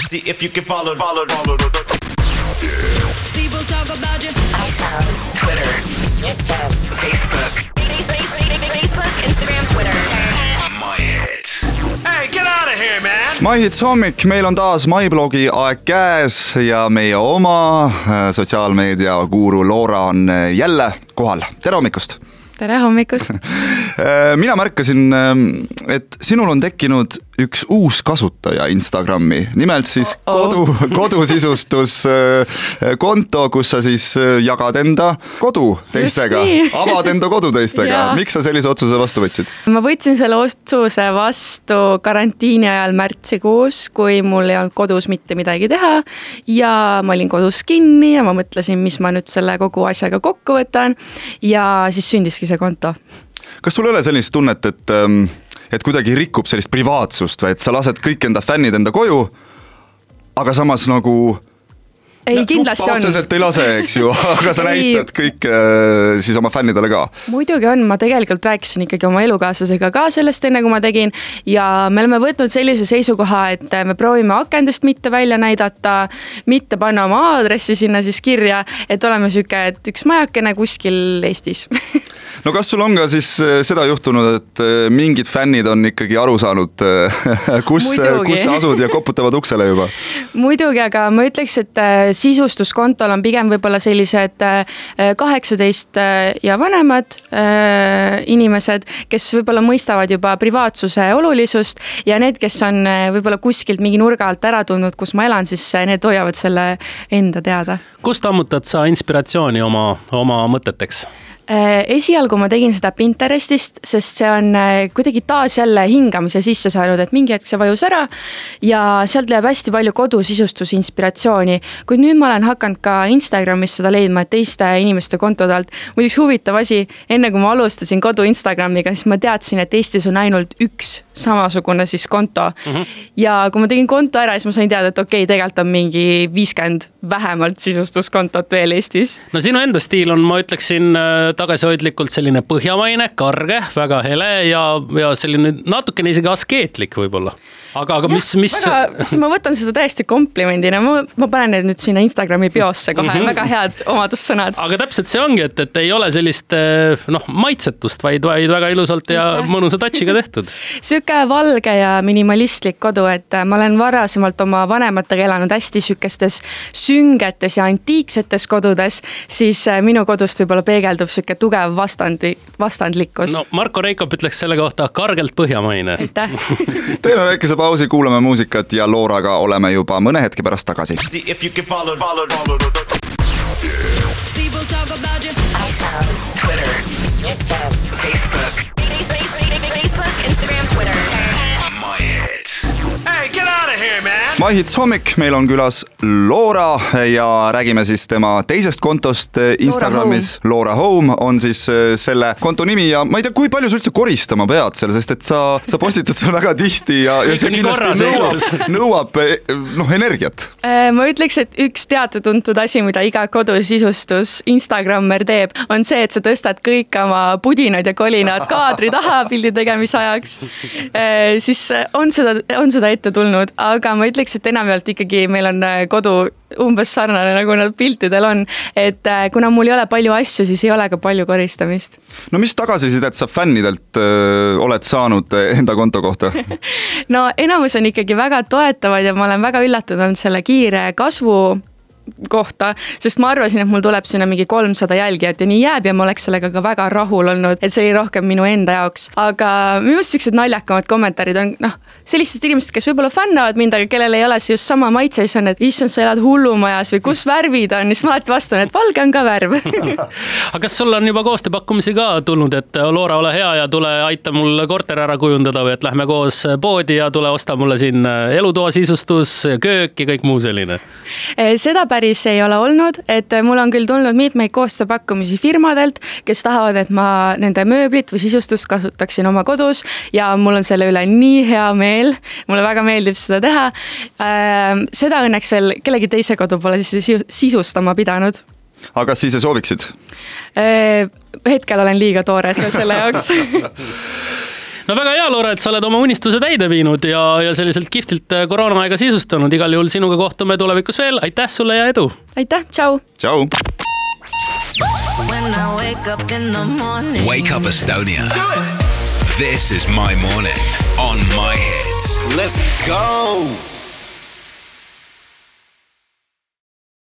See if you can follow. People talk about you. iPhone, Twitter, YouTube, Facebook, Instagram, Twitter. My hits. Hey, get out of here, man! My Hits hommik, meil on taas MyBlogi aeg käes ja meie oma sotsiaalmeedia guru Loora on jälle kohal. Tere hommikust! Tere hommikust! Mina märkasin, et sinul on tekkinud üks uus kasutaja Instagrami, nimelt siis kodusisustus konto, kus sa siis jagad enda kodu teistega, avad enda kodu teistega. Miks sa sellise otsuse vastu võtsid? Ma võtsin selle otsuse vastu karantiini ajal märtsikuus, kui mul ei olnud kodus mitte midagi teha ja ma olin kodus kinni ja ma mõtlesin, mis ma nüüd selle kogu asjaga kokku võtan ja siis sündiski see konto. Kas sul ei ole sellist tunnet, et kuidagi rikub sellist privaatsust või et sa lased kõik enda fännid enda koju, aga samas nagu ei, kindlasti on. Otseselt ei lase, eks ju, aga sa näitad kõik siis oma fännidele ka. Muidugi on, ma tegelikult rääkisin ikkagi oma elukaaslasega ka sellest enne, kui ma tegin ja me oleme võtnud sellise seisukoha, et me proovime akendest mitte välja näidata, mitte panna oma aadressi sinna siis kirja, et oleme süke, et üks majakene kuskil Eestis. No kas sul on ka siis seda juhtunud, et mingid fännid on ikkagi aru saanud, kus sa asud ja koputavad uksele juba? Muidugi, aga ma ütleks, et sisustuskontol on pigem võib-olla sellised 18 ja vanemad inimesed, kes võib-olla mõistavad juba privaatsuse olulisust ja need, kes on võib-olla kuskilt mingi nurga alt ära tundnud, kus ma elan, siis need hoiavad selle enda teada. Kust ammutad sa inspiratsiooni oma mõteteks? Esialgu ma tegin seda Pinterestist, sest see on kuidagi taas jälle hingamise sisse saanud, et mingi hetk see vajus ära ja sealt läheb hästi palju kodusisustuse inspiratsiooni. Kuid nüüd ma olen hakanud ka Instagramis seda leidma, et teiste inimeste kontodelt. Muiduks huvitav asi, enne kui ma alustasin kodu Instagramiga, siis ma teadsin, et Eestis on ainult üks samasugune siis konto. Ja kui ma tegin konto ära, siis ma sain teada, et okei, tegelikult on mingi 50 vähemalt sisustuskontot veel Eestis. No sinu enda stiil on, ma ütleksin, tagasihoidlikult selline põhjamaine, karge, väga hele ja selline natukene isegi askeetlik võib-olla. Aga mis... Ma võtan seda täiesti komplimendina. Ma panen need nüüd sinna Instagrami biosse kohe. Väga head omadussõnad. Aga täpselt see ongi, et ei ole sellist maitsetust, vaid väga ilusalt ja mõnusa touchiga tehtud. Süke valge ja minimalistlik kodu, et ma olen varasemalt oma vanematega elanud hästi sükestes süngetes ja antiiksetes kodudes, siis minu kodust võib-olla peegeldub süke tugev vastandlikkus. No Marko Reikop ütleks selle kohta kargelt põhjamaine. Aitäh. Teeme väikese pausi, kuulame muusikat ja Looraga oleme juba mõne hetke pärast tagasi. See if you can follow. People talk about you. iPhone, Twitter, YouTube, Facebook, Instagram, Twitter. My hits. Hey, get out of here, man! My Hits hommik, meil on külas Loora ja räägime siis tema teisest kontost Instagramis. Loora Home on siis selle konto nimi ja ma ei tea, kui palju sa üldse koristama pead seal, sest et sa postitad seal väga tihti ja see kindlasti nõuab energiat. Ma ütleks, et üks teatud-tuntud asi, mida iga kodusisustus Instagrammer teeb, on see, et sa tõstad kõik oma pudinad ja kolinad kaadri taha pildi tegemise ajaks. Siis on seda ette tulnud, aga ma ütleks, et enamjaolt ikkagi meil on kodu umbes sarnane, nagu nad piltidel on, et kuna mul ei ole palju asju, siis ei ole ka palju koristamist. No mis tagasisidet sa fännidelt oled saanud enda konto kohta? No enamus on ikkagi väga toetavad ja ma olen väga üllatunud selle kiire kasvu kohta, sest ma arvasin, et mul tuleb sinna mingi 300 jälgijat ja nii jääb ja ma oleks sellega ka väga rahul olnud, et see oli rohkem minu enda jaoks. Aga minu sellised naljakamad kommentaarid on sellistest inimesed, kes võib-olla fännavad mind, aga kellel ei ole see just sama maitse, siis on, et issand, sa elad hullumajas või kus värvid on, siis ma alati vastan, et valge on ka värv. Aga kas sul on juba koostööpakkumisi ka tulnud, et Loora, ole hea ja tule aita mul korter ära kujundada või et lähme koos poodi ja tule osta mulle siin elutoa sisustus, köök ja kõik muu selline? Seda päris ei ole olnud, et mul on küll tulnud mitmeid koostööpakkumisi firmadelt, kes tahavad, et ma nende mööblit või sisustust kasutaksin oma kodus ja mul on selle üle nii hea meel. Mulle väga meeldib seda teha. Seda õnneks veel kellegi teise kodu pole sisustama pidanud. Aga kas siis sooviksid? Hetkel olen liiga toores selle jaoks. No väga hea, Loora, et sa oled oma unistuse täide viinud ja selliselt kihvtilt koroonaaega sisustanud. Igal juhul sinuga kohtume tulevikus veel. Aitäh sulle ja edu! Aitäh, tšau! Tšau! When I wake up in the morning. Wake up Estonia. This is my morning on My Hits. Let's go!